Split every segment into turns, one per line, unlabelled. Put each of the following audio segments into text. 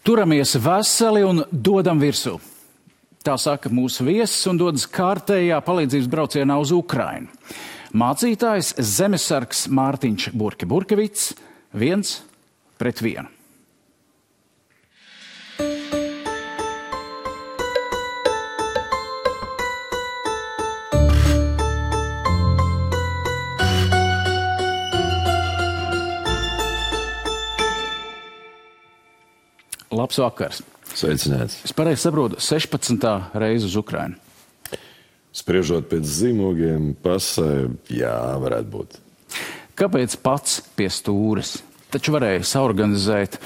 Turamies veseli un dodam virsū. Tā saka mūsu viesis un dodas kārtējā palīdzības braucienā uz Ukrainu. Mācītājs zemesargs Mārtiņš Burkevits 1-1. Labs vakars.
Sveicināts.
Es pareizi saprotu, 16. reize uz Ukrainu.
Spriežot pēc zīmogiem, pasē, jā, varētu būt.
Kāpēc pats pie stūres? Taču varēja saorganizēt,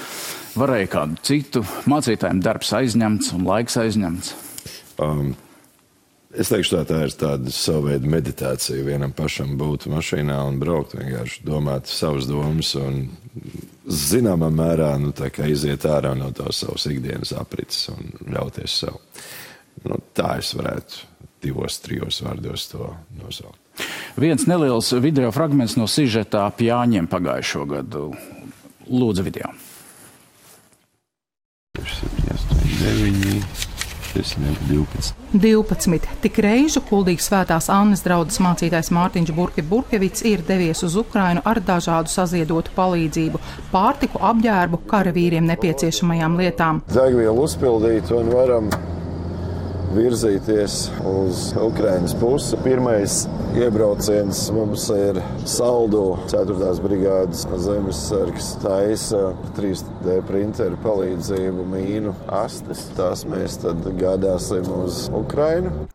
varēja kādu citu, mācītājiem darbs aizņemts un laiks aizņemts.
Es teikšu tā ir tāda sava veida meditācija vienam pašam būt mašīnā un braukt, vienkārši domāt savas domas un zināmā mērā tā kā iziet ārā no tās savas ikdienas aprits un ļauties sev. Tā es varētu 2-3 vārdos to nosaukt.
Viens neliels video fragments no sižeta ap Jāņiem pagājušo gadu. Lūdzu video.
12. Tik reižu kuldīgs Svētās Annas draudzes mācītājs Mārtiņš Burkevits ir devies uz Ukrainu ar dažādu saziedotu palīdzību, pārtiku, apģērbu, karavīriem nepieciešamajām lietām.
Degvielu uzpildīt un varam virzīties uz Ukrainas pusi. Pirmais iebrauciens mums ir Saldu 4. brigādes zemesargs taisa 3D printeru palīdzību mīnu astes. Tās mēs tad gādāsim uz Ukrainu.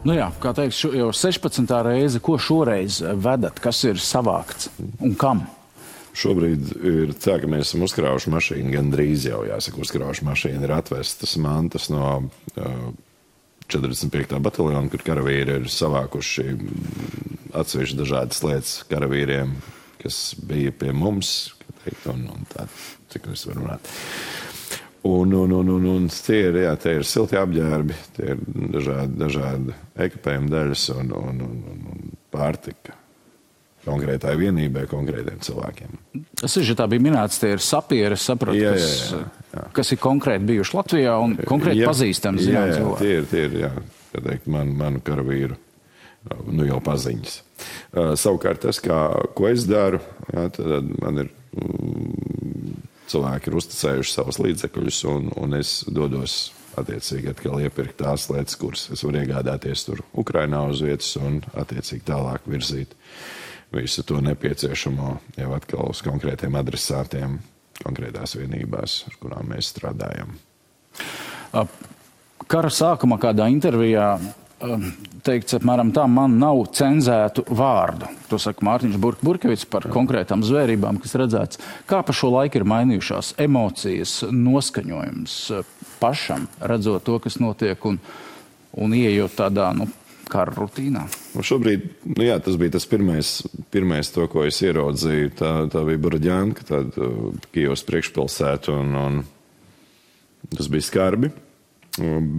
Jā, kā teiks, jau 16. reize, ko šoreiz vedat, kas ir savākts un kam?
Šobrīd ir tā, ka mēs esam uzkrājuši mašīnu, gandrīz jau jāsaka, uzkrājuši mašīnu, ir atvestas mantas no 45. bataljona, kur karavīri ir savākuši atsevišķi dažādas lietas karavīriem, kas bija pie mums, un tā, cik mēs varam runāt. Un tie ir silti apģērbi, tie ir dažādi ekipējuma daļas un pārtika. Konkrētai vienībai, konkrētiem cilvēkiem.
Sižetā bija minēts, tie ir sapieri, saprotu, kas ir konkrēti bijuši Latvijā un konkrēti pazīstami zinām cilvēki.
Tie ir, manu karavīru, jau paziņas. Savukārt tas, ko es daru, tad man ir cilvēki ir uzticējuši savus līdzekļus un es dodos attiecīgi atkal iepirkt tās lietas, kuras es varu iegādāties tur Ukrainā uz vietas un attiecīgi tālāk virzīt visu to nepieciešamo jau atkal uz konkrētiem adresātiem, konkrētās vienībās, ar kurām mēs strādājam.
Kara sākumā kādā intervijā teikts, apmēram tā, man nav cenzētu vārdu. To saka Mārtiņš Burkevits par konkrētām zvērībām, kas redzēts. Kā pa šo laiku ir mainījušās emocijas, noskaņojums pašam, redzot to, kas notiek un ieejot tādā, kara rutīnā?
Šobrīd, tas bija tas pirmais to, ko es ieraudzīju. Tā bija Borodjanka, tāda Kijevas priekšpilsēta, un tas bija skarbi.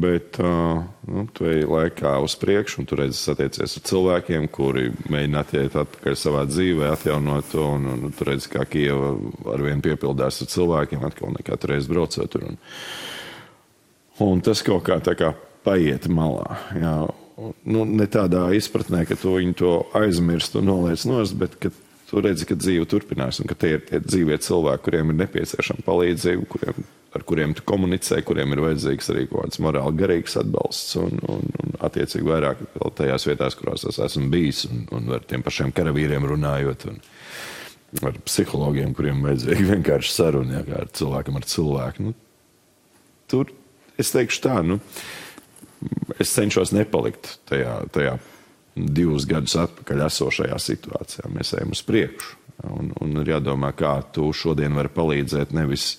Bet tu ej laikā uz priekšu, un tu redzi satiecies ar cilvēkiem, kuri mēģina attiekt atpakaļ savā dzīvē, atjaunot to, un tu redzi, kā Kijeva arvien piepildās ar cilvēkiem, atkal nekā tu reiz braucot tur. Un tas kaut kā tā kā paiet malā, jā. Ne tādā izpratnē, ka tu viņu to aizmirst un noliec nost, bet ka tu redzi, ka dzīve turpinās un ka tie ir tie dzīvie cilvēki, kuriem ir nepieciešama palīdzība, ar kuriem tu komunicē, kuriem ir vajadzīgs arī kaut kāds morāli garīgs atbalsts un attiecīgi vairāk vēl tajās vietās, kurās es esmu bijis un ar tiem pašiem karavīriem runājot un ar psihologiem, kuriem vajadzīgi vienkārši saruna, kā ar cilvēkam ar cilvēku. Tur, es teikšu tā, es cenšos nepalikt tajā 2 gadus atpakaļ esošajā situācijā. Mēs ejam uz priekšu. Un ir jādomā, kā tu šodien vari palīdzēt nevis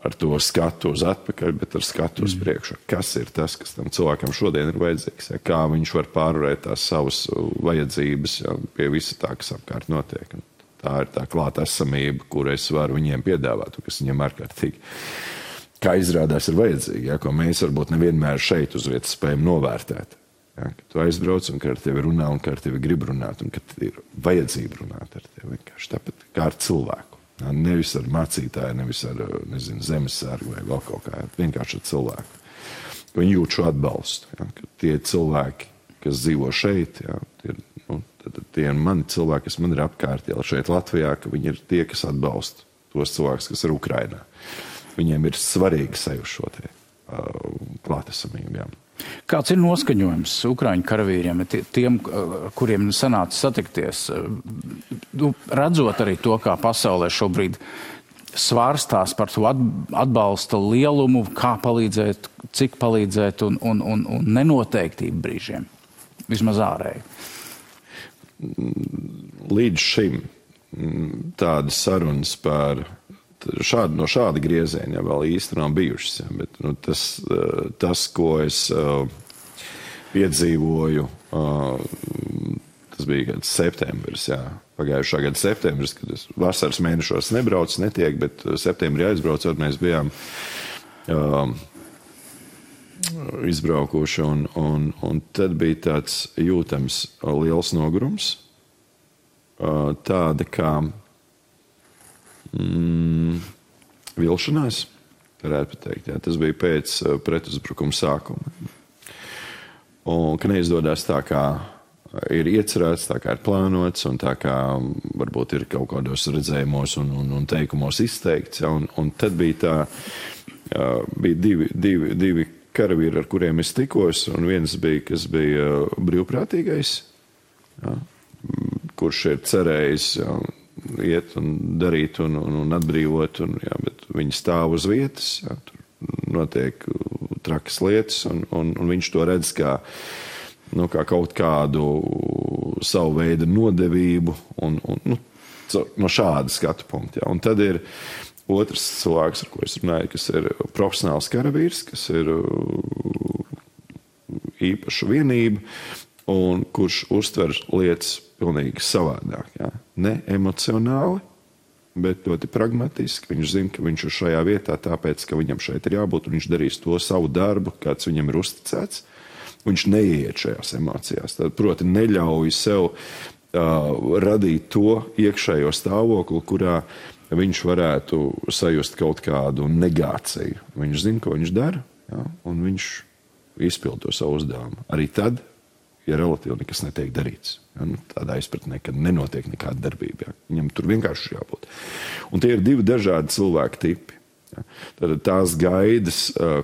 ar to skatu uz atpakaļ, bet ar skatu uz priekšu. Kas ir tas, kas tam cilvēkam šodien ir vajadzīgs? Kā viņš var pārvarēt tās savas vajadzības pie visa tā, kas apkārt notiek. Tā ir tā klāta esamība, kur es varu viņiem piedāvāt, kas viņiem ārkārtīgi kā izrādās ir vajadzīgi, ko mēs varbūt nevienmēr šeit uz vietas spējam novērtēt. Ka tu aizbrauc un ka ar tevi runā un ka ar tevi grib runāt un ka ir vajadzība runāt ar tevi vienkārši tāpat kā ar cilvēku. Nevis ar mācītāju, nevis ar, zemesargu vai vēl kaut kā, vienkārši ar cilvēku. Viņi jūt šo atbalstu, ka tie cilvēki, kas dzīvo šeit, tie ir mani cilvēki, kas man ir apkārt, šeit Latvijā, ka viņi ir tie, kas atbalsta tos cilvēkus, kas ir Ukrainā. Viņiem ir svarīgi sajust šo klātesamību.
Kāds ir noskaņojums Ukraiņu karavīriem, tiem, kuriem sanāca satikties, redzot arī to, kā pasaulē šobrīd svārstās par to atbalsta lielumu, kā palīdzēt, cik palīdzēt un nenoteiktību brīžiem, vismaz ārēji? Līdz
šim tādas sarunas par no šāda grieziena vēl īsti nav bijušas, bet tas, ko es piedzīvoju, tas bija septembris, pagājušā gada septembris, kad es vasaras mēnešos nebraucu, netiek, bet septembrī aizbraucot, mēs bijām izbraukuši, un tad bija tāds jūtams liels nogurums, tāda kā vilšanās, varētu pateikt. Tas bija pēc pretuzbrukuma sākuma. Un ka neizdodas tā, kā ir iecerēts, tā kā ir plānots, un tā kā varbūt ir kaut kādos redzējumos un teikumos izteikts. Un tad bija bija divi karavīri, ar kuriem es tikos, un viens bija, kas bija brīvprātīgais, kurš ir cerējis iet un darīt un atbrīvot, bet viņi stāv uz vietas, tur notiek trakas lietas, un viņš to redz kā kaut kādu savu veidu nodevību, no šāda skatu punkta. Un tad ir otrs cilvēks, ar ko es runāju, kas ir profesionāls karavīrs, kas ir īpaša vienība, un kurš uztver lietas pilnīgi savādāk. Ne emocionāli, bet ļoti pragmatiski. Viņš zina, ka viņš ir šajā vietā tāpēc, ka viņam šeit ir jābūt, un viņš darīs to savu darbu, kāds viņam ir uzticēts. Viņš neiet šajās emocijās. Tad, proti, neļauj sev radīt to iekšējo stāvokli, kurā viņš varētu sajust kaut kādu negāciju. Viņš zina, ko viņš dara, un viņš izpild to savu uzdevumu. Arī tad, ja relatīvi nekas netiek darīts. Tādā izpratnē, ka nenotiek nekāda darbība. Viņam tur vienkārši jābūt. Un tie ir divi dažādi cilvēku tipi. Tad tās gaidas,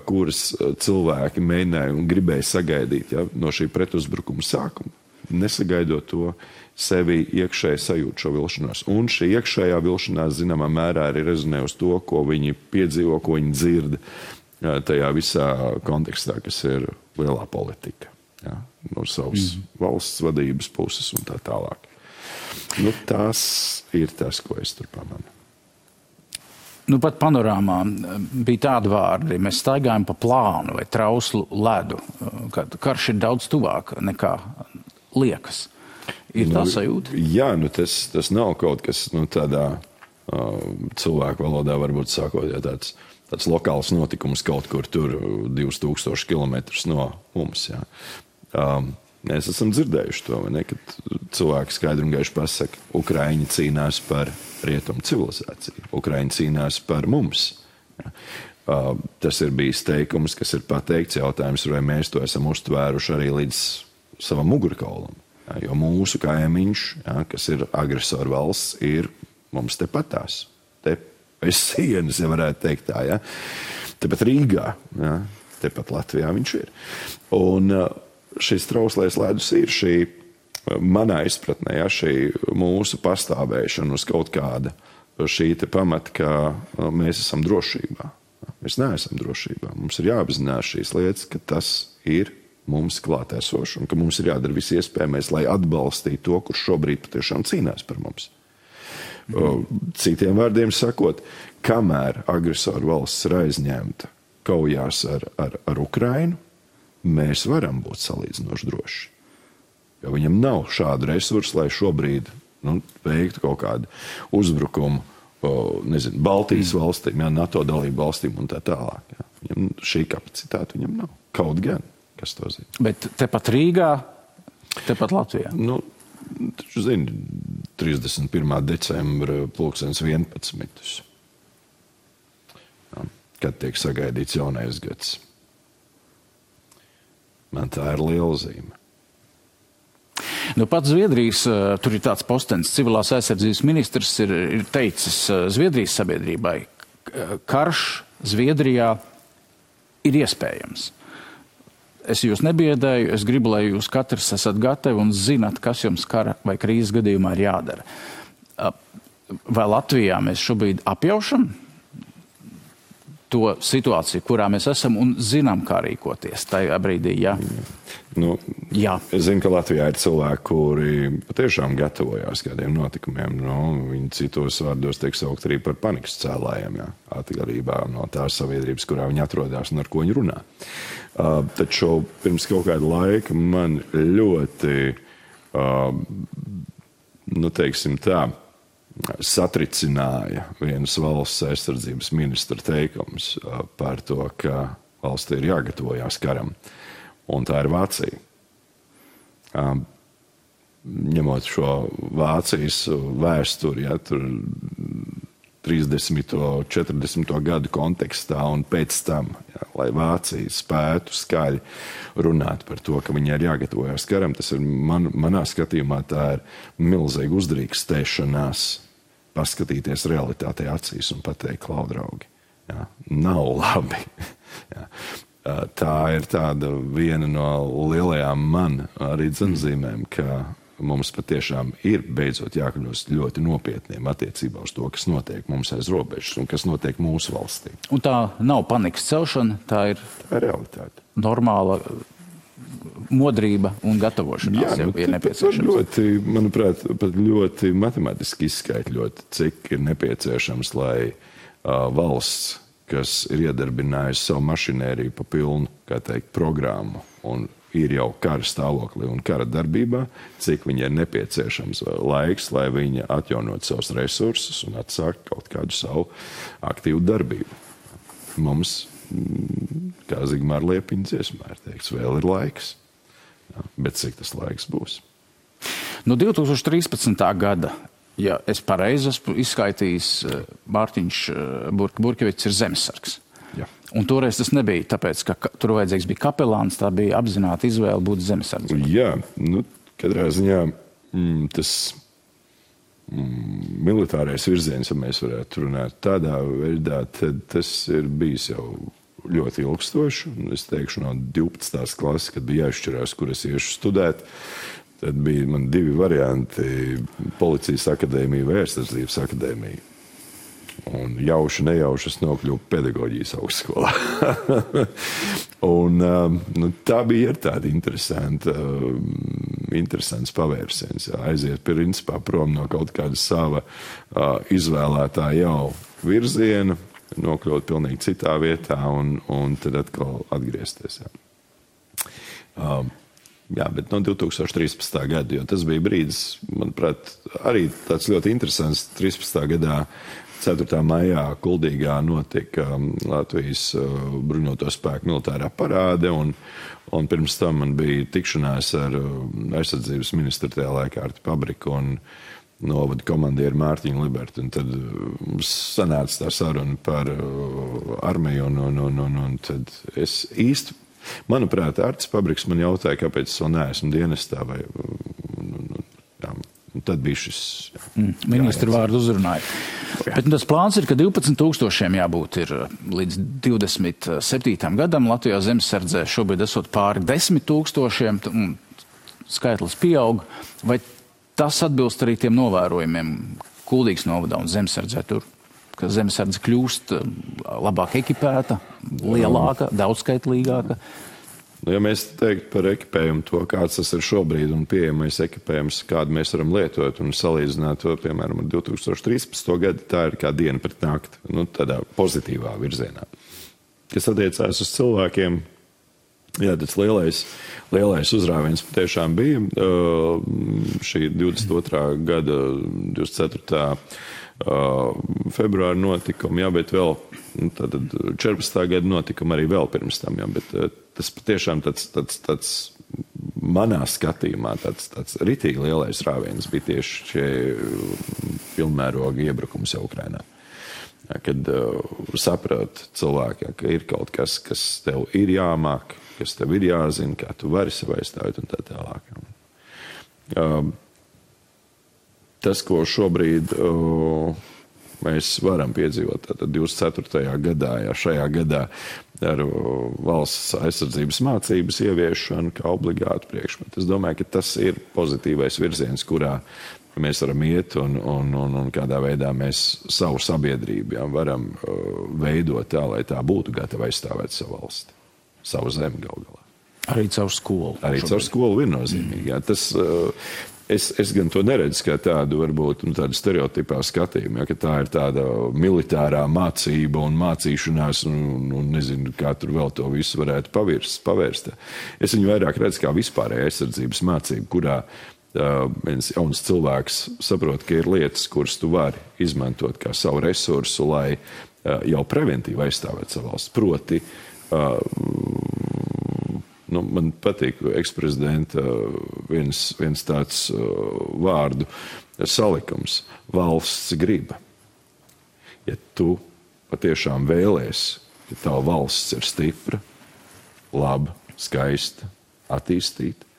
kuras cilvēki mēģināja un gribēja sagaidīt no šī pretuzbrukuma sākuma, nesagaidot to, sevi iekšēji sajūt šo vilšanos. Un šī iekšējā vilšanās zināmā mērā arī rezonē uz to, ko viņi piedzīvo, ko viņi dzird tajā visā kontekstā, kas ir lielā politika. No savas valsts vadības puses un tā tālāk. Tas ir tas, ko es tur pamanu.
Pat panorāmā bija tādi vārdi, mēs staigājam pa plānu vai trauslu ledu, kad karš ir daudz tuvāk nekā liekas. Ir tā sajūta?
Jā, tas nav kaut kas tādā cilvēku valodā varbūt sākot, tāds lokāls notikums kaut kur tur 2000 kilometrus no mums, Mēs esam dzirdējuši to, kad cilvēki skaidri un gaiši pasaka, Ukraiņi cīnās par rietumu civilizāciju, Ukraiņi cīnās par mums. Tas ir bijis teikums, kas ir pateikts, jautājums, vai mēs to esam uztvēruši arī līdz savam mugurkaulam. Jo mūsu kaimiņš, kas ir agresoru valsts, ir mums tepatās. Te pēc sienas, ja varētu teikt tā, Tepat Rīgā, tepat Latvijā viņš ir. Un šis trauslais ledus ir šī, manā izpratnē, šī mūsu pastāvēšana uz kaut kāda šī te pamata, ka mēs esam drošībā. Mēs neesam drošībā. Mums ir jāapzinās šīs lietas, ka tas ir mums klātesoši un ka mums ir jādara viss iespējamais, lai atbalstītu to, kurš šobrīd patiešām cīnās par mums. Citiem vārdiem sakot, kamēr agresoru valsts ir aizņemta kaujās ar Ukrainu, mēs varam būt salīdzinoši droši. Jo viņam nav šādu resursu, lai šobrīd veiktu kaut kādu uzbrukumu, Baltijas valstīm, NATO dalību valstīm un tā tālāk. Viņam šī kapacitāte viņam nav. Kaut gan, kas to zina.
Bet tepat Rīgā, tepat Latvijā?
Taču zini, 31. decembra 11. Kad tiek sagaidīts jaunais gads. Man tā ir liela zīme.
Nu, pats Zviedrijas, tur ir tāds postenis, civilās aizsardzības ministrs ir teicis Zviedrijas sabiedrībai, karš Zviedrijā ir iespējams. Es jūs nebiedēju, es gribu, lai jūs katrs esat gatavi un zinat, kas jums kara vai krīzes gadījumā ir jādara. Vai Latvijā mēs šobrīd apjaušam to situāciju, kurā mēs esam un zinām, kā rīkoties tajā brīdī, jā?
Jā. Es zinu, ka Latvijā ir cilvēki, kuri patiešām gatavojās kādiem notikumiem. Viņi citos vārdos tiek saukt arī par panikas cēlājiem, atkarībā no tās sabiedrības, kurā viņi atrodas un ar ko viņi runā. Taču pirms kaut kāda laika man ļoti, teiksim tā, satricināja vienas valsts aizsardzības ministra teikums par to, ka valstī ir jāgatavojās karam. Un tā ir Vācija. Ņemot šo Vācijas vēsturi, tur 30. 40. gadu kontekstā un pēc tam, lai Vācija spētu skaļi runāt par to, ka viņai ir jāgatavojās karam, tas ir manā skatījumā tā ir milzīga uzdrīkstēšanās paskatīties realitātei acīs un pateikt, klau, draugi, nav labi. Tā ir tāda viena no lielajām man arī dzenzīmēm, ka mums patiešām ir beidzot jākļūst ļoti nopietniem attiecībā uz to, kas notiek mums aiz robežas un kas notiek mūsu valstī.
Un tā nav panikas celšana, tā ir
realitāte.
Normāla modrība un gatavošanās jau ir nepieciešams.
Manuprāt, pat ļoti matemātiski izskaitļot, cik ir nepieciešams, lai valsts, kas ir iedarbinājusi savu mašinēriju pa pilnu, kā teikt, programmu un ir jau kara stāvoklī un kara darbībā, cik viņai ir nepieciešams laiks, lai viņa atjaunot savus resursus un atsākt kaut kādu savu aktīvu darbību. Mums, kā Zigmāra Liepiņa dziesmā ir teikts, vēl ir laiks. Bet cik tas laiks būs?
No 2013. gada, ja es pareizi esmu izskaitījis, Mārtiņš Burkevits ir zemesargs.
Jā.
Un toreiz tas nebija tāpēc, ka tur vajadzīgs bija kapelāns, tā bija apzināta izvēle būt zemesargs.
Jā, katrā ziņā tas militārais virziens, ja mēs varētu runāt tādā veidā, tad tas ir bijis jau ļoti ilgstoši. Es teikšu, no 12. klases, kad bija jāizšķirās, kur es iešu studēt, tad bija man divi varianti - policijas akadēmija vai aizsardzības akadēmija. Un jauši, nejauši es nokļuvu pedagoģijas augstskolā. Un tā bija tāda interesants pavērsiens. Aiziet principā prom no kaut kāda sava izvēlētā jau virziena, nokļūt pilnīgi citā vietā un tad atkal atgriezties. Bet no 2013. gada, jo tas bija brīdis, manuprāt, arī tāds ļoti interesants 13. gadā 4. maijā Kuldīgā notika Latvijas bruņoto spēku militārā parāde, un pirms tam man bija tikšanās ar aizsardzības ministru tajā laikā Arti Pabriku un novada komandieru Mārtiņu Libertu. Un tad sanāca tā saruna par armiju, un tad es īsti, manuprāt, Artis Pabriks man jautāja, kāpēc es vēl neesmu dienestā, vai tad bija šis...
Ministru vārdu uzrunāja. Bet tas plāns ir, ka 12,000 jābūt ir līdz 27. gadam Latvijā zemesardzē. Šobrīd esot pāri 10,000, un skaitlis pieaug. Vai tas atbilst arī tiem novērojumiem Kuldīgas novadā un zemesardzē tur, ka zemesardze kļūst labāk ekipēta, lielāka, daudzskaitlīgāka?
Ja mēs teiktu par ekipējumu to, kāds tas ir šobrīd un pieejamais ekipējums, kādu mēs varam lietot un salīdzināt to, piemēram, ar 2013. gadu, tā ir kā diena pret nakti, tādā pozitīvā virzienā. Kas attiecās uz cilvēkiem, jā, tas lielais uzrāviens patiešām bija šī 22. gada 24. Februāra notikumi, bet vēl tad 14. gada notikumi arī vēl pirms tam, bet tas patiešām tāds manā skatījumā tāds ritīgi lielais rāviens bija tieši šie pilnmēroga iebrukums jau Ukrainā. Kad saprot cilvēki, ka ir kaut kas tev ir jāmāk, kas tev ir jāzina, kā tu vari sev aizstāvēt un tā tālāk. Tas, ko šobrīd mēs varam piedzīvot tātad 24. gadā, šajā gadā ar valsts aizsardzības mācības ieviešanu kā obligātu priekšmetu. Es domāju, ka tas ir pozitīvais virziens, kurā mēs varam iet un kādā veidā mēs savu sabiedrību varam veidot tā, lai tā būtu gatava aizstāvēt savu valsti, savu zemi gal galā.
Arī caur skolu.
Arī caur skolu viennozīmīgi. Tas, es gan to neredzu kā tādu, varbūt, tādu stereotipā skatījumu, ka tā ir tāda militārā mācība un mācīšanās un nezinu, kā tur vēl to visu varētu pavērst. Es viņu vairāk redzu kā vispārēja aizsardzības mācību, kurā viens jauns cilvēks saprot, ka ir lietas, kuras tu vari izmantot kā savu resursu, lai jau preventīvi aizstāvēt savu valsts. Proti, man patīk eksprezidenta viens tāds vārdu salikums - valsts griba. Ja tu patiešām vēlies, ka tava valsts ir stipra, laba, skaista, attīstīta,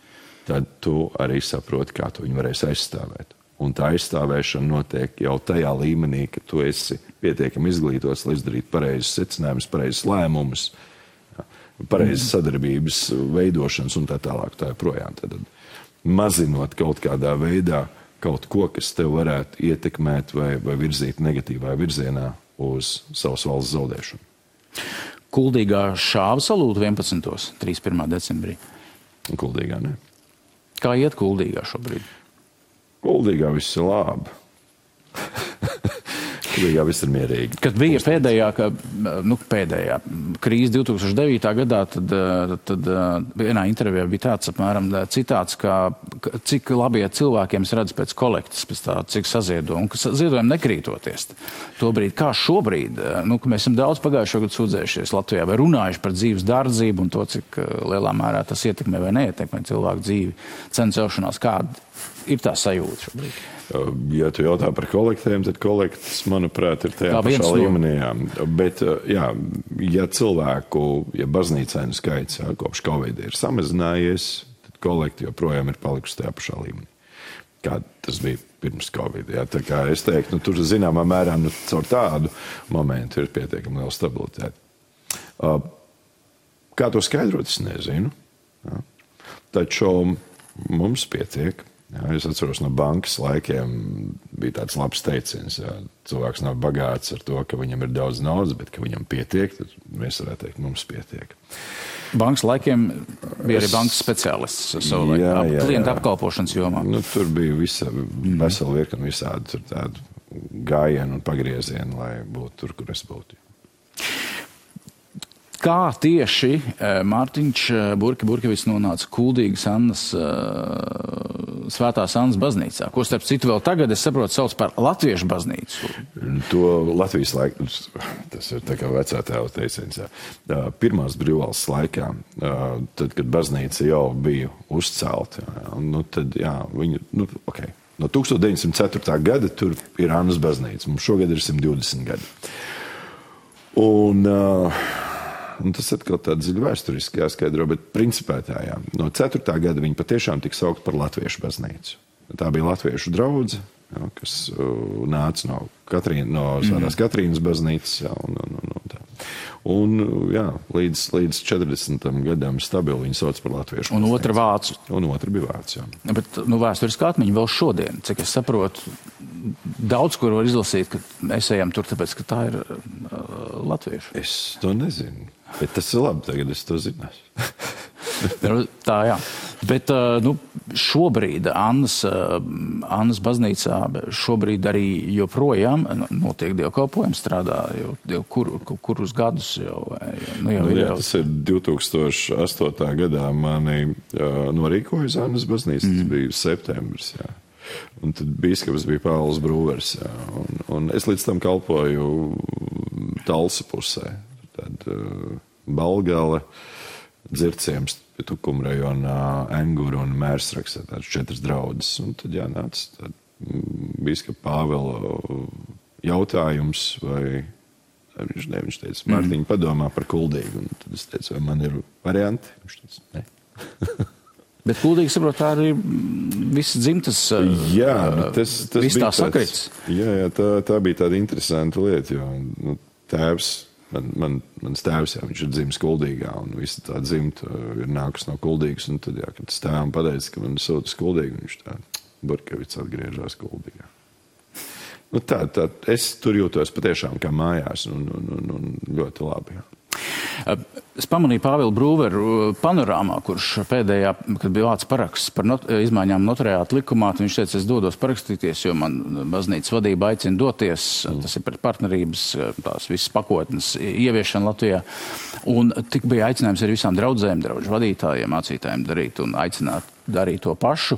tad tu arī saproti, kā tu viņu varēsi aizstāvēt. Un tā aizstāvēšana notiek jau tajā līmenī, ka tu esi pietiekami izglītots, lai izdarītu pareizus secinājumus, pareizus lēmumus, pareizas sadarbības veidošanas un tā tālāk. Tā joprojām. Tad mazinot kaut kādā veidā kaut ko, kas tev varētu ietekmēt vai virzīt negatīvā virzienā uz savas valsts zaudēšanu.
Kuldīgā šāva salūta 11. 31. decembrī.
Kuldīgā, ne?
Kā iet Kuldīgā šobrīd?
Kuldīgā viss ir labi. Kuldīgā viss ir mierīgi.
Kad bija pēdējā krīze 2009. gadā, tad vienā intervijā bija tāds apmēram citāts, ka cik labi iet cilvēkiem redz pēc kolektas, pēc tā, cik saziedo, un ka ziedojumi nekrītoties. Tobrīd, kā šobrīd, ka mēs esam daudz pagājušo gadu sūdzējušies Latvijā vai runājuši par dzīves dārdzību un to, cik lielā mērā tas ietekmē vai neietekmē cilvēku dzīvi, cenu celšanās, kāda ir tā sajūta šobrīd?
Ja tu jautā par kolektēm, tad kolektas, manuprāt, ir tajā pašā līmenī. Bet, ja baznīcēnu skaits kopš Covid ir samazinājies, tad kolekti joprojām ir palikusi tajā pašā līmenī. Kā tas bija pirms Covid. Tā kā es teiktu, tur zināmā mērā caur tādu momentu ir pietiekami liela stabilitāte. Kā to skaidrot, es nezinu. Taču mums pietiek. Es atceros no bankas laikiem bija tāds labs teiciens. Cilvēks nav bagāts ar to, ka viņam ir daudz naudas, bet ka viņam pietiek, tad mēs varētu teikt, mums pietiek.
Bankas laikiem bija arī bankas speciālists savu laiku, klientu apkalpošanas jomā.
Tur bija vesela virkni visādi tādu gājienu un pagriezienu, lai būtu tur, kur es būtu.
Kā tieši Mārtiņš Burkevits nonāca Kuldīgas Annas, Svētās Annas baznīcā, ko starp citu vēl tagad, es saprotu, sauc par Latviešu baznīcu?
To Latvijas laiku, tas ir tā kā vecā tēva teiciens. Pirmās brīvvalsts laikā, tad, kad baznīca jau bija uzcelta, tad, viņi, no 1904. gada tur ir Annas baznīca. Mums šogad ir 120 gadi. Un tas atkal tāda dziļa vēsturiski jāskaidro, bet principā no 4. gada viņi patiešām tika saukt par Latviešu baznīcu. Tā bija Latviešu draudze, kas nāca no Svētās Katrīnas baznīcas. Līdz 40. gadam stabili viņi sauc par Latviešu baznīcu.
Un otra vācu.
Un otra bija vācu, jā.
Bet vēsturiski atmiņa vēl šodien, cik es saprotu, daudz, kur var izlasīt, ka mēs ejam tur, tāpēc, ka tā ir latviešu.
Es to nezinu, bet tas ir labi, tagad es to zināšu.
Tā, jā. Bet šobrīd Annas baznīcā šobrīd arī joprojām notiek dievkalpojumi, strādā jau kurus gadus jau.
Tas ir 2008. gadā mani norīkoja Annas baznīca, tas bija septembris, jā. Un tad bīskaps bija Pāvils Brūvers, jā. Un es līdz tam kalpoju Talsa pusē. Tad Balgale, Dzirciems Tukuma rajonā Enguru un Mērsrakstā tādas 4 draudzes. Un tad jānāca bīskapa Pāvela jautājums, vai viņš teica, Mārtiņ, padomā par Kuldīgu. Un tad es teicu, vai man ir varianti? Viņš teica, ne.
Bet Kuldīgi, saprot, tā arī viss dzimtas, viss tā sakrits.
Jā, tā bija tāda interesanta lieta, jo tēvs, mans tēvs, viņš ir dzimis Kuldīgā, un visa tā dzimta ir nākus no Kuldīgas, un tad, kad tas tēvam pateica, ka man sūta uz Kuldīgu, viņš tā, Burkevits atgriežās Kuldīgā. Tā, es tur jūtos patiešām kā mājās, un ļoti labi, jā.
Es pamanīju Pāvilu Brūveru panorāmā, kurš pēdējā, kad bija vāc paraksts par izmaiņām notariāta likumā, viņš teica, es dodos parakstīties, jo man baznīcas vadība aicina doties, tas ir par partnerības, tās visas pakotnes ieviešana Latvijā, un tik bija aicinājums arī visām draudzēm, draudžu vadītājiem, mācītājiem darīt un aicināt darīt to pašu,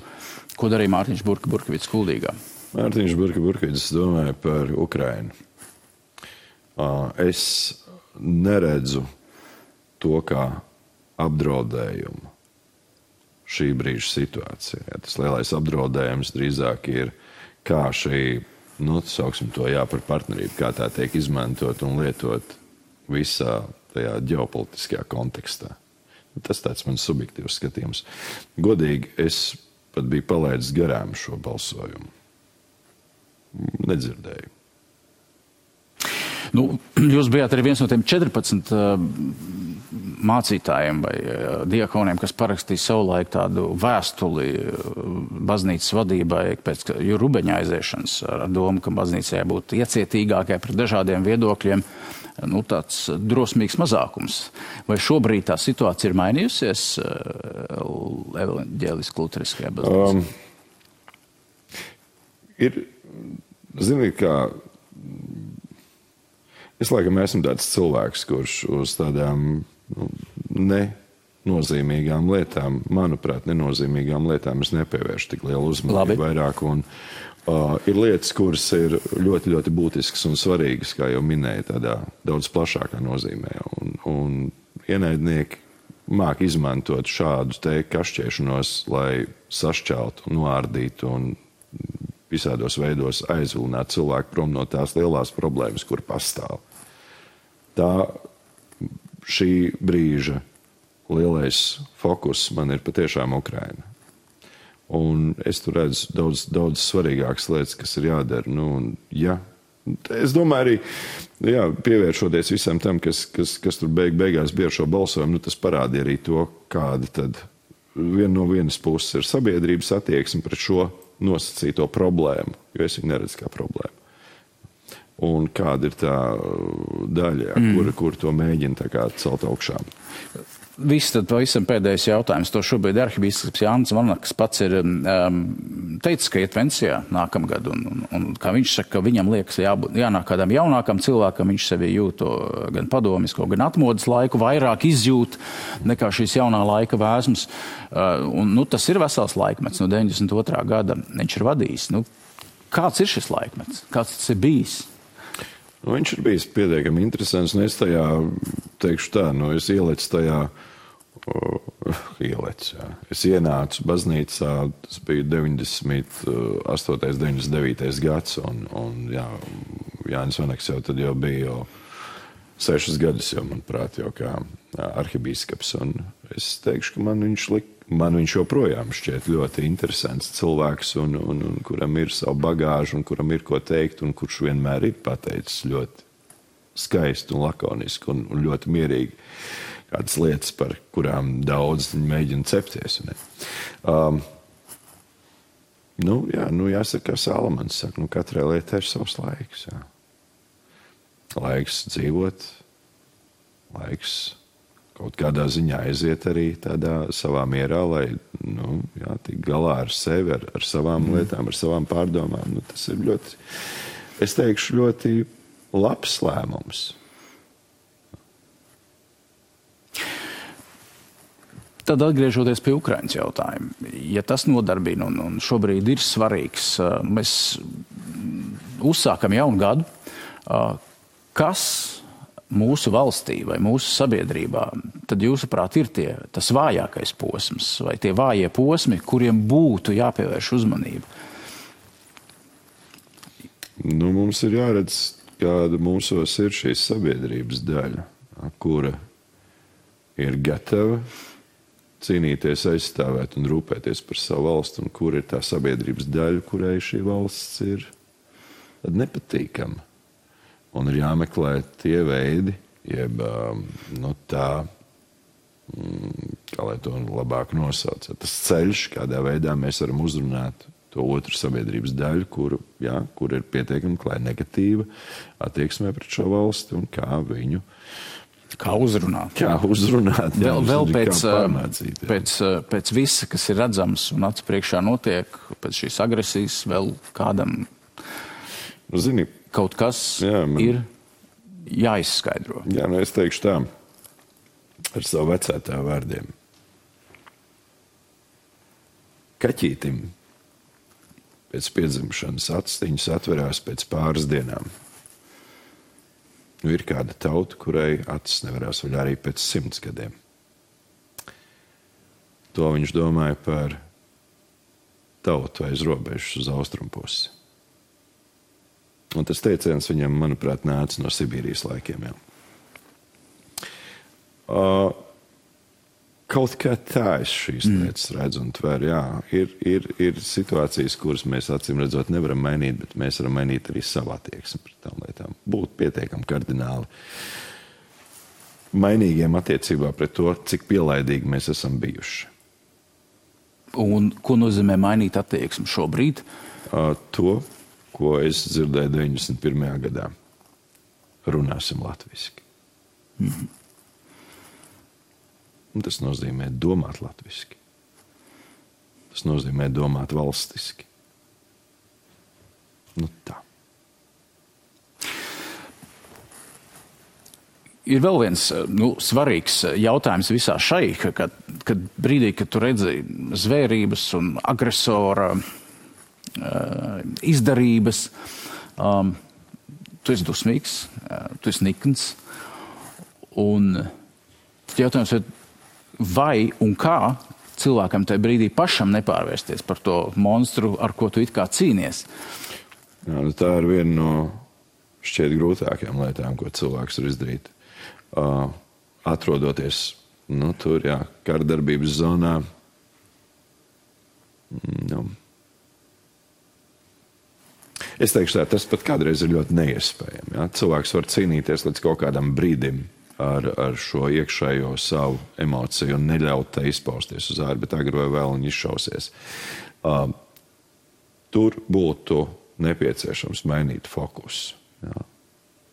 ko darīja Mārtiņš Burkevits Kuldīgā.
Mārtiņš Burkevits domāja par Ukrainu. Es neredzu to kā apdraudējumu šī brīža situācijā. Tas lielais apdraudējums drīzāk ir, kā šī, sauksim to par partnerību, kā tā tiek izmantot un lietot visā tajā ģeopolitiskajā kontekstā. Tas tāds mans subjektīvs skatījums. Godīgi, es pat biju palaidis garām šo balsojumu. Nedzirdēju.
Jūs bijāt arī viens no tiem 14 mācītājiem vai diakoniem, kas parakstīja savulaik tādu vēstuli baznīcas vadībai pēc Rubeņa aiziešanas ar domu, ka baznīcai būtu iecietīgākai pret dažādiem viedokļiem, tāds drosmīgs mazākums. Vai šobrīd tā situācija ir mainījusies evaņģēliski luteriskajā baznīcā?
Ziniet, kā es laikam esmu tāds cilvēks, kurš uz tādām nenozīmīgām lietām, manuprāt, nenozīmīgām lietām es nepievēršu tik lielu uzmanību vairāk. Un, ir lietas, kuras ir ļoti, ļoti būtiskas un svarīgas, kā jau minēju, tādā daudz plašākā nozīmē. Un ienaidnieki māk izmantot šādu te kašķēšanos, lai sašķeltu, noārdītu un visādos veidos aizvilināt cilvēku prom no tās lielās problēmas, kur pastāv. Šī brīža lielais fokus man ir patiešām Ukraina. Un es tur redzu daudz svarīgākas lietas, kas ir jādara. Es domāju arī, pievēršoties visam tam, kas tur beigās bija ar šo balsojumu, tas parādīja arī to, kāda tad no vienas puses ir sabiedrības attieksme pret šo nosacīto problēmu, jo es viņu neredzu kā problēmu. Un kāda ir tā daļa, kur to mēģina tā kā celt augšā?
Viss tad pavisam pēdējais jautājums. To šobrīd arhibīskaps Jānis Vanaks pats ir teicis, ka iet pensijā nākamgad. Un kā viņš saka, ka viņam liekas jānāk kādam jaunākam cilvēkam, viņš sevi jūt gan padomisko, gan atmodas laiku, vairāk izjūt nekā šīs jaunā laika vēsmas. Tas ir vesels laikmets no 92. gada. Viņš ir vadījis. Kāds ir šis laikmets? Kāds tas ir bijis?
Viņš ir bijis pietiekami interesants, un es tajā teikšu tā, es ielecu tajā, es ienācu baznīcā, tas bija 98. 99. gads, un Jānis Vanaks jau tad jau bija 6 gadus, manuprāt, jau kā arhibīskaps, un es teikšu, ka man viņš joprojām šķiet ļoti interesants cilvēks, un kuram ir savu bagāžu, un kuram ir ko teikt, un kurš vienmēr ir pateicis ļoti skaisti un lakoniski un ļoti mierīgi kādas lietas, par kurām daudz mēģina cepties. Jāsaka, kā Salamans saka, katrai lietai ir savs laiks. Jā. Laiks dzīvot, laiks kaut kādā ziņā aiziet arī tādā savā mierā, lai tik galā ar sevi, ar savām lietām, ar savām pārdomām. Tas ir ļoti, es teikšu, ļoti labs lēmums.
Tad atgriežoties pie Ukrainas jautājuma, ja tas nodarbina un šobrīd ir svarīgs, mēs uzsākam jaunu gadu, kas mūsu valstī vai mūsu sabiedrībā, tad jūsuprāt ir tas vājākais posms vai tie vājie posmi, kuriem būtu jāpievērš uzmanība?
Mums ir jāredz, kāda mūsos ir šīs sabiedrības daļa, kura ir gatava cīnīties, aizstāvēt un rūpēties par savu valstu, un kur ir tā sabiedrības daļa, kurai šī valsts ir nepatīkama. Un ir jāmeklē tie veidi, jeb tā, kā lai to labāk nosauc, tas ceļš, kādā veidā mēs varam uzrunāt to otru sabiedrības daļu, kur ir pietiekami klāja negatīva attieksmē pret šo valsti un kā viņu
uzrunāt.
Kā uzrunāt.
Vēl pēc visa, kas ir redzams un acu priekšā notiek, pēc šīs agresijas vēl kādam kaut kas ir jāizskaidro.
Jā, es teikšu tā, ar savu vecētāju vārdiem. Kaķītim pēc piedzimšanas astiņas atverās pēc pāris dienām. Ir kāda tauta, kurai acis nevarās vaļā arī pēc 100 gadiem. To viņš domāja par tautu aiz robežas uz austrumpusi. Un tas teiciens viņam, manuprāt, nāca no Sibīrijas laikiem. Kaut kā tā es šīs lietas redzu un tveru. Ir situācijas, kuras mēs acīm redzot nevaram mainīt, bet mēs varam mainīt arī savu attieksmi pret tām lietām. Būt pietiekami kardināli mainīgiem attiecībā pret to, cik pielaidīgi mēs esam bijuši.
Un ko nozīmē mainīt attieksmi šobrīd?
To, ko es dzirdēju 91. gadā. Runāsim latviski. Un tas nozīmē domāt latviski. Tas nozīmē domāt valstiski. Tā.
Ir vēl viens svarīgs jautājums visā šai, kad brīdī, kad tu redzi zvērības un agresora izdarības, tu esi dusmīgs, tu esi nikns, un jautājums ir, vai un kā cilvēkam tajā brīdī pašam nepārvērsties par to monstru, ar ko tu it kā cīnies?
Jā, tā ir viena no šķiet grūtākajām lietām, ko cilvēks var izdarīt. Atrodoties tur, kardarbības zonā, es teikšu tā, tas pat kādreiz ir ļoti neiespējami. Ja? Cilvēks var cīnīties līdz kaut kādam brīdim ar šo iekšējo savu emociju un neļaut tai izpausties uz ārā, bet agri vai vēl viņi izšausies. Tur būtu nepieciešams mainīt fokusu. Ja?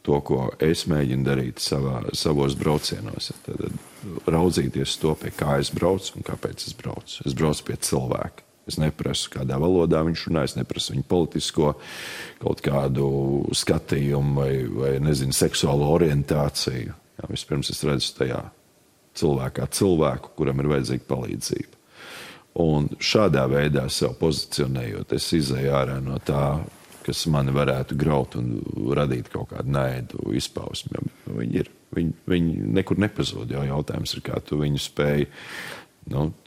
To, ko es mēģinu darīt savos braucienos. Tad raudzīties to, pie kā es braucu un kāpēc es braucu. Es braucu pie cilvēka. Es neprasu, kādā valodā viņš runā, es neprasu viņu politisko kaut kādu skatījumu vai seksuālo orientāciju. Jā, vispirms es redzu tajā cilvēku, kuram ir vajadzīga palīdzība. Un šādā veidā sev pozicionējot, es izēju ārā no tā, kas mani varētu graut un radīt kaut kādu naidu izpausmi. Viņi nekur nepazūd, jo jautājums ir, kā tu viņu spēj,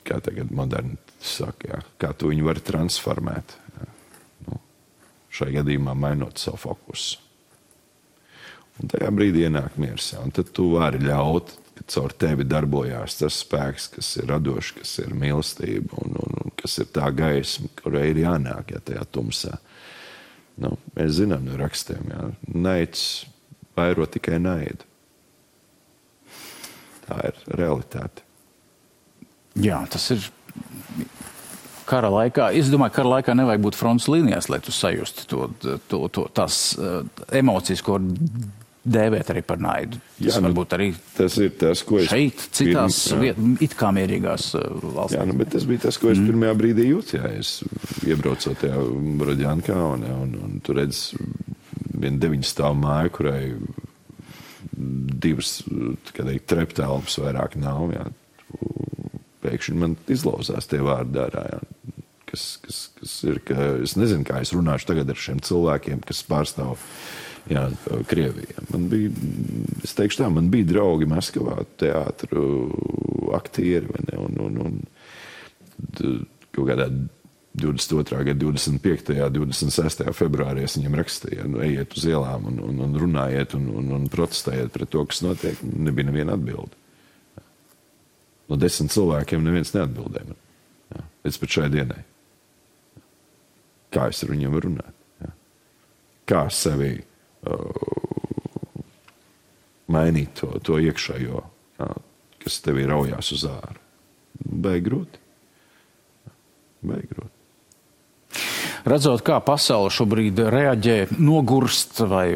kā tagad moderni saka, kā tu viņu vari transformēt. Šai gadījumā mainot savu fokusu. Un tajā brīdī ienāk miers. Un tad tu vari ļaut, ka caur tevi darbojās tas spēks, kas ir radošs, kas ir mīlestība un kas ir tā gaisma, kurai ir jānāk tajā tumsā. Mēs zinām no rakstiem, naids vairo tikai naidu. Tā ir realitāte.
Jā, tas ir kara laikā. Es domāju, kara laikā nevajag būt frontes līnijās, lai tu sajustu tās emocijas, ko dēvēt arī par naidu. Tas varbūt arī
tas ir tas, ko
šeit, citās it kā mierīgās valstīs.
Jā, bet tas bija tas, ko es pirmajā brīdī jūtu. Es iebraucot tajā Borodjankā un tu redz vienu 9 stāvu māju, kurai 2 treptelpas vairāk nav. Pēkšņi man izlauzās tie vārdi ārā, kas kas ir, ka es nezinu, kā es runāšu tagad ar šiem cilvēkiem, kas pārstāv Krieviju. Es teikšu tā, man bija draugi Maskavā, teātru aktieri, vai ne, un kaut kādā 22. gada 25. 26. februārī es viņiem rakstīju, ejiet uz ielām un runājiet un protestējiet pret to, kas notiek. Nebija neviena atbilde. No 10 cilvēkiem neviens neatbildēja man. Līdz pat šai dienai. Kā es ar viņiem varu runāt? Kā sevi mainīt to iekšējo, kas tevī raujās uz āru? Baigi grūti.
Redzot, kā pasaule šobrīd reaģē, nogurst vai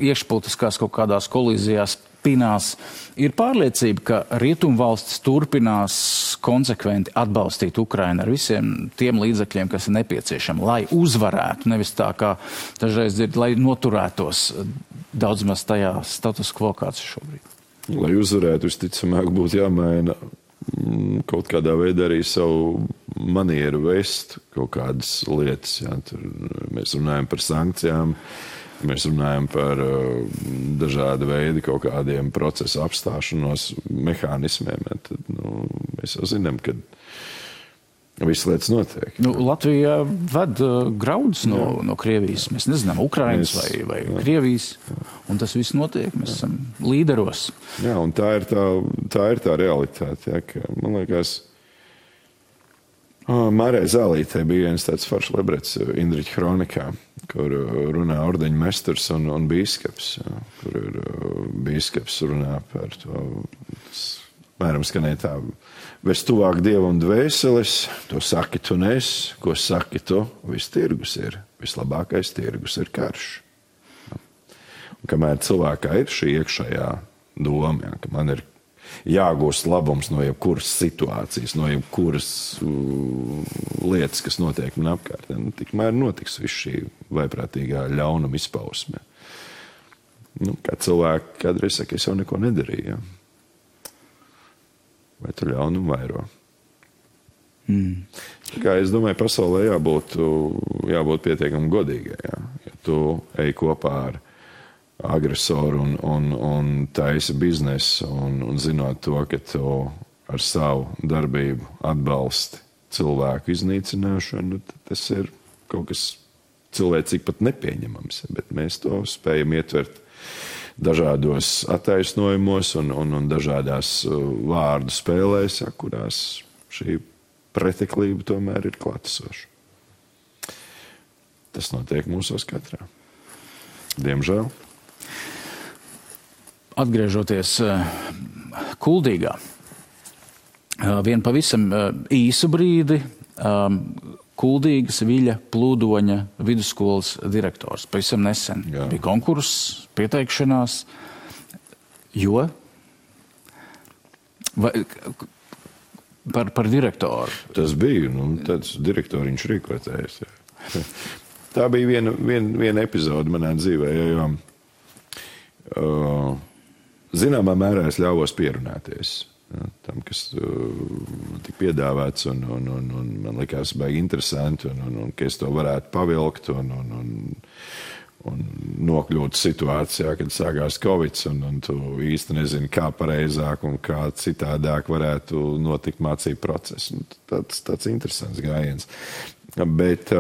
iekšpolitiskās kaut kādās kolīzijās pinās, ir pārliecība, ka rietumvalstis turpinās konsekventi atbalstīt Ukrainu ar visiem tiem līdzekļiem, kas ir nepieciešami, lai uzvarētu, nevis tā kā dažreiz dzird, lai noturētos daudz maz tajā status quo, kāds ir šobrīd.
Lai uzvarētu, visticamāk, būtu jāmaina kaut kādā veidā arī savu manieru vest kaut kādas lietas. Tur mēs runājam par sankcijām, mēs runājam par dažādu veidu kaut kādiem procesu apstāšanos mehānismiem. Tad, mēs jau zinām, ka visas lietas notiek.
Latvija ved graudus no Krievijas. Mēs nezinām, Ukrainas vai Krievijas. Un tas viss notiek. Mēs esam līderos.
Jā, un tā ir tā realitāte. Jā, ka, man liekas, Mārai Zālītei bija viens tāds foršs lebrets Indriķa Hronikā, kur runā ordeņu mesturs un bīskaps, kur ir bīskaps runā par to, mēram skanēja tā, ves tuvāk Dievam dvēseles, to saki tu nes, ko saki tu, viss tirgus ir, vislabākais tirgus ir karš. Un kamēr cilvēkā ir šī iekšējā doma, ka man ir jāgūst labums no jebkuras situācijas, no jebkuras lietas, kas notiek man apkārt. Tikmēr notiks viss šī vaiprātīgā ļaunuma izpausme. Kā cilvēki kādreiz saka, es jau neko nedarīju. Ja? Vai tu ļaunumu vairo? Kā es domāju, pasaulē jābūt pietiekami godīgai. Ja? Ja tu ej kopā ar agresoru un taisa biznesu un zinot to, ka tu ar savu darbību atbalsti cilvēku iznīcināšanu, tas ir kaut kas cilvēcīgi pat nepieņemams, bet mēs to spējam ietvert dažādos attaisnojumos un dažādās vārdu spēlēs, kurās šī preteklība tomēr ir klātesoša. Tas notiek mūsos katrā. Diemžēl.
Atgriežoties Kuldīgā, vien pavisam īsu brīdi Kuldīgas Viļa Plūdoņa vidusskolas direktors. Pavisam nesen bija konkurss, pieteikšanās, jo par direktoru.
Tas bija, tāds direktoriņš rīkotājs. Tā bija viena epizode manā dzīvē, jo zināmā mērā es ļāvos pierunāties tam, kas tika piedāvāts, un man likās baigi interesanti, un ka es to varētu pavilkt un nokļūt situācijā, kad sākās Covid, un tu īsti nezini, kā pareizāk un kā citādāk varētu notikt mācību process. Tāds interesants gājiens. Bet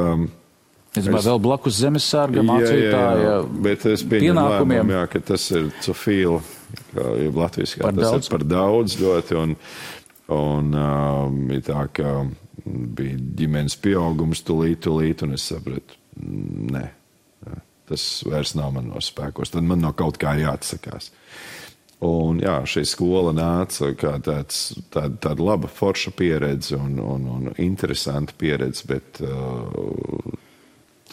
es vēl blakus zemesārga mācītāja
bet es pieņemu lēmumu, ka tas ir cofīla, latviski, tas ir par daudz ļoti, un bija tā, ka bija ģimenes pieaugums tulīt, un es sapratu, nē, tas vairs nav man no spēkos, tad man no kaut kā jāatsakās. Un jā, šī skola nāca kā tāda laba forša pieredze un interesanta pieredze, bet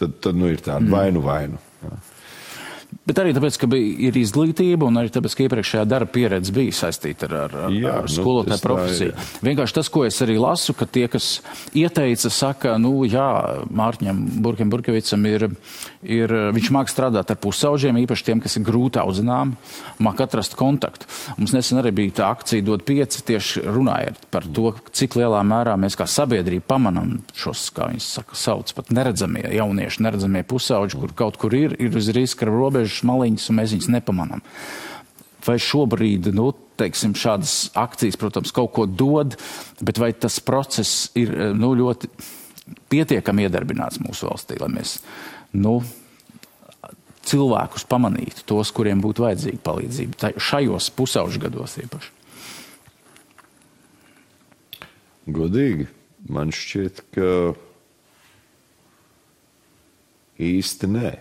tad ir tāda vainu. Jā.
Bet arī tāpēc, ka ir izglītība un arī tāpēc, ka iepriekšējā darba pieredze bija saistīta ar skolotāju profesiju. Vienkārši tas, ko es arī lasu, ka tie, kas ieteica, saka, Mārtiņam Burkevicam viņš māk strādāt ar pusauģiem, īpaši tiem, kas ir grūti audzināmi, māk atrast kontaktu. Mums nesen arī bija tā akcija Dod 5, tieši runājot par to, cik lielā mērā mēs kā sabiedrība pamanam šos, kā viņi sauc, pat neredzamie jaunieši, neredzamie pusauģi, kur kaut kur ir uz riska robežas maliņas, un mēs viņus nepamanām. Vai šobrīd, teiksim, šādas akcijas, protams, kaut ko dod, bet vai tas process ir, ļoti pietiekami iedarbināts mūsu valstī, lai mēs, cilvēkus pamanītu, tos, kuriem būtu vajadzīga palīdzība, šajos pusauģu gados īpaši?
Godīgi, man šķiet, ka īsti nē.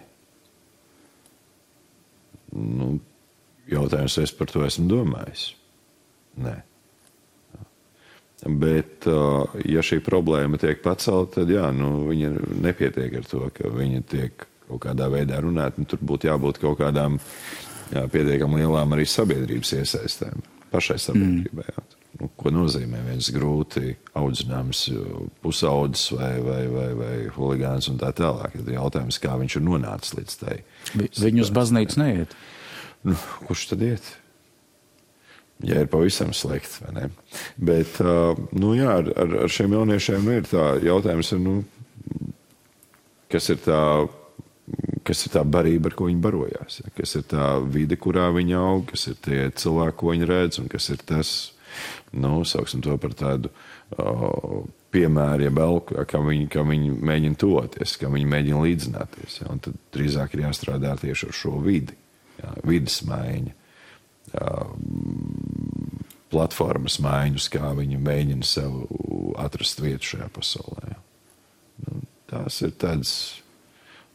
Jautājums, vai es par to esmu domājis? Nē. Bet, ja šī problēma tiek pacelta, tad viņa nepietiek ar to, ka viņa tiek kaut kādā veidā runāt, un tur būtu jābūt kaut kādām pietiekam lielām arī sabiedrības iesaistēm, pašai sabiedrībai. Ko nozīmē viens grūti audzināms pusaudzis vai huligāns un tā tālāk. Ir jautājums, kā viņš ir nonācis līdz tai.
Viņi uz baznīcu neiet?
Kurš tad iet? Ja ir pavisam slikti, vai ne? Bet, ar šiem jauniešiem ir tā jautājums, kas ir tā barība, ar ko viņi barojās? Kas ir tā vide, kurā viņi aug? Kas ir tie cilvēki, ko viņi redz? Un kas ir tas, sauksim to par tādu piemēru, kā viņi mēģina toties, kā viņi mēģina līdzināties. Un tad drīzāk ir jāstrādā tieši ar šo vidi. Vides maiņa, platformas maiņus, kā viņi mēģina sev atrast vietu šajā pasaulē. Tās ir tādas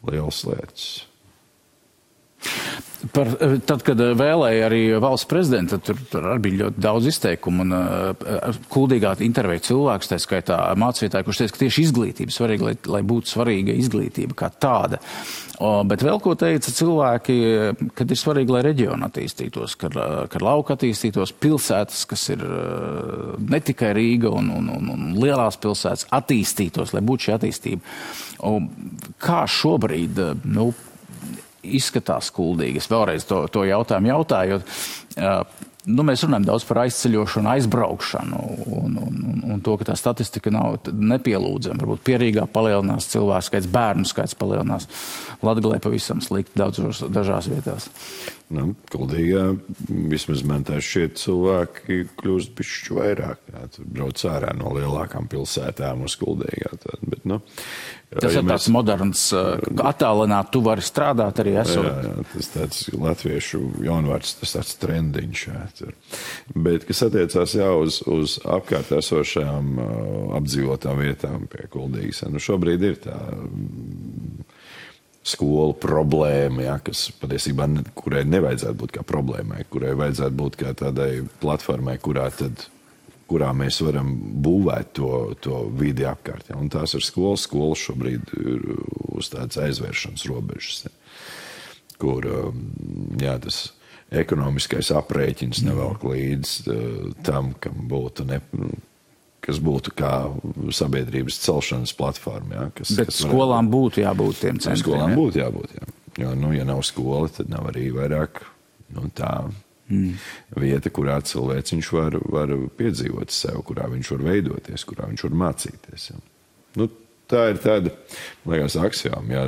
lielas lietas.
Tad, kad vēlēja arī valsts prezidenta, tur arī bija ļoti daudz izteikumu un kuldīgā intervēja cilvēks, tā skaitā mācītāji, kurš teica, ka tieši izglītība svarīga, lai būtu svarīga izglītība kā tāda. Bet vēl ko teica cilvēki, kad ir svarīgi, lai reģioni attīstītos, kad lauka attīstītos, pilsētas, kas ir ne tikai Rīga un lielās pilsētas, attīstītos, lai būtu šī attīstība. Kā šobrīd, izskatās kuldīgi? Es vēlreiz to jautājumu jautājot. Mēs runājam daudz par aizceļošanu, aizbraukšanu un to, ka tā statistika nav nepielūdzama. Varbūt Pierīgā palielinās cilvēku skaits, bērnu skaits palielinās. Latgalē pavisam slikti dažās vietās.
Kuldīgā vismaz man tā šķiet cilvēki kļūst bišķi vairāk. Tur brauc ārā no lielākām pilsētām uz Kuldīgā. Bet,
tas ir tāds moderns, attālināt, tu vari strādāt arī esot.
Jā, tas tāds latviešu jaunvārds, tas tāds trendiņš. Bet, kas attiecās uz apkārt esošajām apdzīvotām vietām pie Kuldīgas, šobrīd ir tā skolu problēma, kas patiesībā, kurai nevajadzētu būt kā problēmai, kurai vajadzētu būt kā tādai platformai, kurā mēs varam būvēt to vidi apkārt. Un tās ir skolas šobrīd ir uz tādas aizvēršanas robežas, kur tas ekonomiskais aprēķins nevelk līdz tam, kas būtu kā sabiedrības celšanas platforma.
Bet skolām būtu jābūt tiem centriem.
Skolām būtu jābūt, jā. Jo, ja nav skola, tad nav arī vairāk tā vieta, kurā cilvēciņš var piedzīvot sev, kurā viņš var veidoties, kurā viņš var mācīties. Tā ir tāda, liekas, aksioma, ja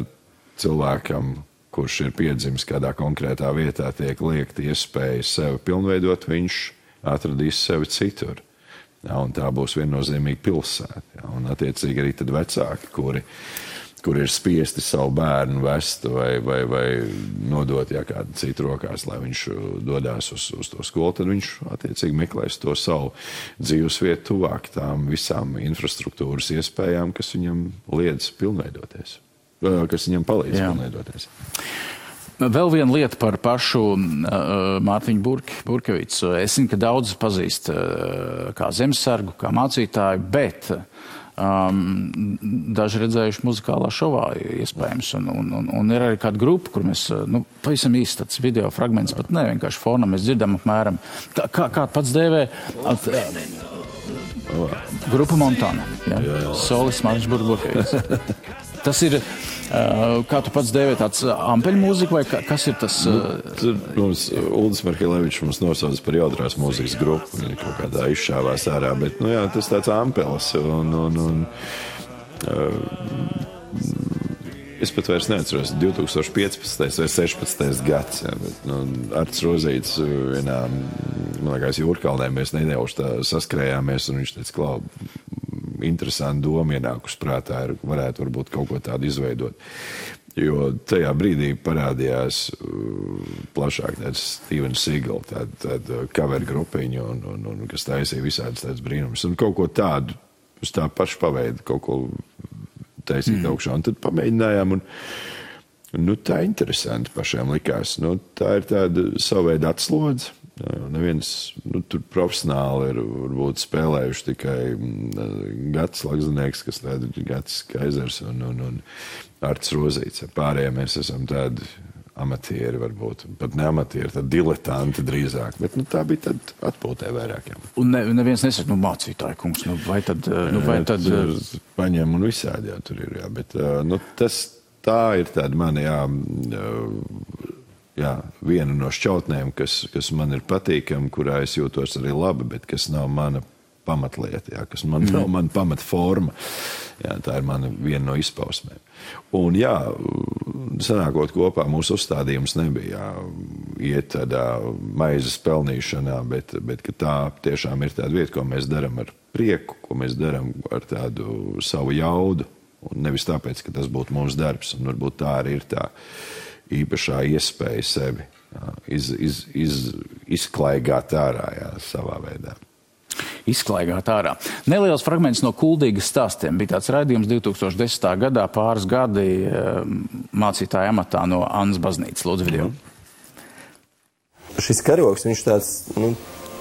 cilvēkam, kurš ir piedzimis kādā konkrētā vietā, tiek liekt iespēja sevi pilnveidot, viņš atradīs sevi citur. Un tā būs viennozīmīga pilsēta. Un attiecīgi arī tad vecāki, kuri ir spiesti savu bērnu vest vai nodot kādu citu rokās, lai viņš dodās uz to skolu, tad viņš attiecīgi meklēs to savu dzīves vietu tuvāk tām visām infrastruktūras iespējām, kas viņam liedz pilnveidoties, kas viņam palīdz pilnveidoties.
Vēl viena lieta par pašu Mārtiņu Burkevicu. Es zinu, ka daudz pazīst kā zemesargu, kā mācītāju, bet daži redzējuši muzikālā šovā iespējams. Un ir arī kāda grupa, kur mēs, pavisam īsti tāds video fragments, pat ne vienkārši fonam, mēs dzirdam apmēram, kā pats dēvē, grupa Montana, Solis Mārtiņš Burkevits. Tas ir, kā tu pats dēvē, tāds ampeļu mūzika, vai kas ir tas?
Uldis Markelevičs mums nosauc par jautrās mūzikas grupu, viņa kaut kādā izšāvās ārā, bet, tas tāds ampelis, es pat vairs neatceros, 2015. vai 16. gads, bet, Arts Rozīts vienā, man liekas, Jūrkalnē mēs nedēļuši tā saskrējāmies, un viņš teica, Klau, interesanti doma ienākus prātā, varētu varbūt kaut ko tādu izveidot. Jo tajā brīdī parādījās plašāk tāds Steven Seagal, tāda cover grupiņa, un kas taisīja visādas tādas brīnumus. Un kaut ko tādu, uz tā paša paveida, kaut ko taisīt augšā. Un tad pamēģinājām, un tā interesanti pašiem likās. Tā ir tāda saveida atslodze. Neviens, tur profesionāli ir varbūt spēlējuši tikai Gats Lagzanieks, kas tāda Gats Kaizers un Arts Rozīts. Pārējie mēs esam tādi amatieri varbūt, pat ne amatieri, tad diletanti drīzāk, bet tā bija tad atpūtē vairākiem.
Un neviens nesaka, mācītāji kungs, vai tad...
Paņem un visādi, tur ir, bet tā ir tāda mani, viena no šķautnēm, kas man ir patīkama, kurā es jūtos arī labi, bet kas nav mana pamatlieta, kas nav mana pamatforma. Tā ir viena no izpausmēm. Un sanākot kopā, mūsu uzstādījums nebija iet tādā maizes pelnīšanā, bet ka tā tiešām ir tāda vieta, ko mēs darām ar prieku, ko mēs darām ar tādu savu jaudu, un nevis tāpēc, ka tas būtu mūsu darbs, un varbūt tā arī ir tā īpašā iespēja sevi izklaigāt ārā, savā veidā.
Izklaigāt ārā. Neliels fragments no Kuldīgas stāstiem. Bija tāds raidījums 2010. gadā, pāris gadi mācītāja amatā no Annas baznīcas. Lūdzu, video.
Šis karogs, viņš tāds,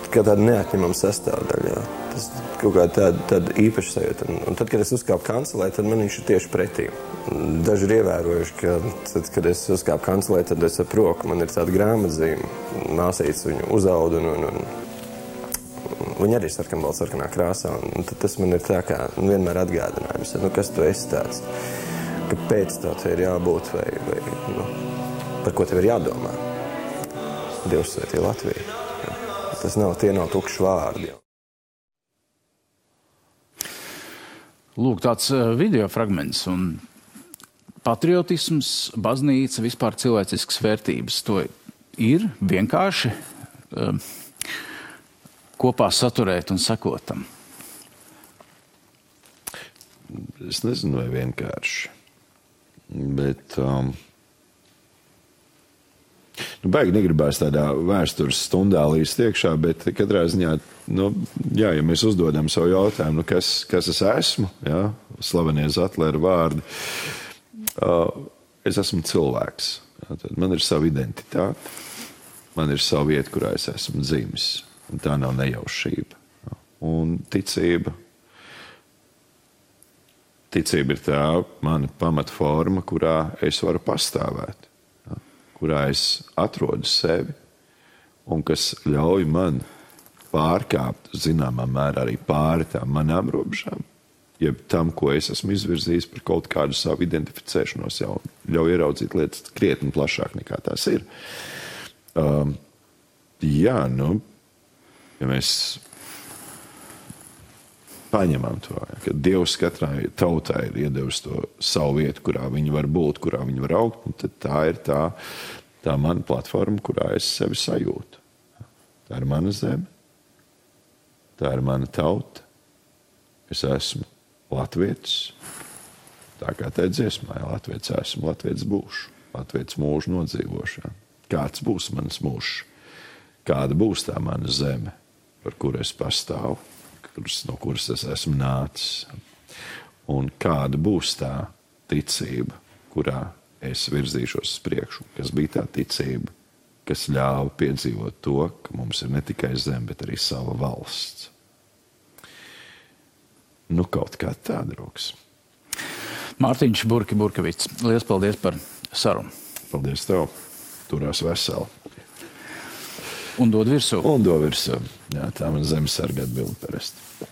kā tāda neatņemama sastāvdaļa. Tas kaut kā tāda īpaša sajūta. Un tad, kad es uzkāpu kancelē, tad man viņš ir tieši pretī. Daži ir ievērojuši, ka tad, kad es uzkāpu kancelē, tad es ap roku, man ir tāda grāmatzīme. Māsītes viņu uzauda un viņa arī sarkanā krāsā. Un tad tas man ir tā kā vienmēr atgādinājums. Kas tu esi tāds? Kāpēc tev te ir jābūt vai par ko tev ir jādomā? Dievs svētī Latviju. Tie nav tukši vārdi.
Lūk, tāds video fragments un patriotisms, baznīca, vispār cilvēciskas vērtības. To ir vienkārši kopā saturēt un sekot tam.
Es nezinu, vai vienkārši, bet baigi negribās tādā vēstures stundā līdz iekšā, bet katrā ziņā, ja mēs uzdodam savu jautājumu, kas es esmu, slavenie Zatlera vārdi, es esmu cilvēks. Tad man ir sava identitāte, man ir sava vieta, kurā es esmu dzimis. Un tā nav nejaušība. Un ticība ir tā mana pamatforma, kurā es varu pastāvēt, kurā es atrodu sevi un kas ļauj man pārkāpt zināmā mērā arī pāri tām manām robežām, jeb tam, ko es esmu izvirzījis par kaut kādu savu identificēšanos, jau ļauj ieraudzīt lietas krietni plašāk nekā tās ir. Ja mēs paņemam to, ka Dievs katrai tautai ir iedevis to savu vietu, kurā viņi var būt, kurā viņi var augt, tad tā ir tā mana platforma, kurā es sevi sajūtu. Tā ir mana zeme, tā ir mana tauta. Es esmu latvietis, tā kā tā dziesmā, latvietis esmu, latvietis būšu, latvietis mūžu nodzīvošā. Kāds būs manas mūžs? Kāda būs tā mana zeme, par kuru es pastāvu, no kuras es esmu nācis? Un kāda būs tā ticība, kurā es virzīšos uz priekšu? Kas bija tā ticība, kas ļāva piedzīvot to, ka mums ir ne tikai zeme, bet arī sava valsts? Nu, kaut kā tā, draugs.
Mārtiņš Burkevits, liels paldies par sarunu.
Paldies tev. Turās veseli.
Un dod virsū.
Jā, tā man zemesarga atbilde parasti.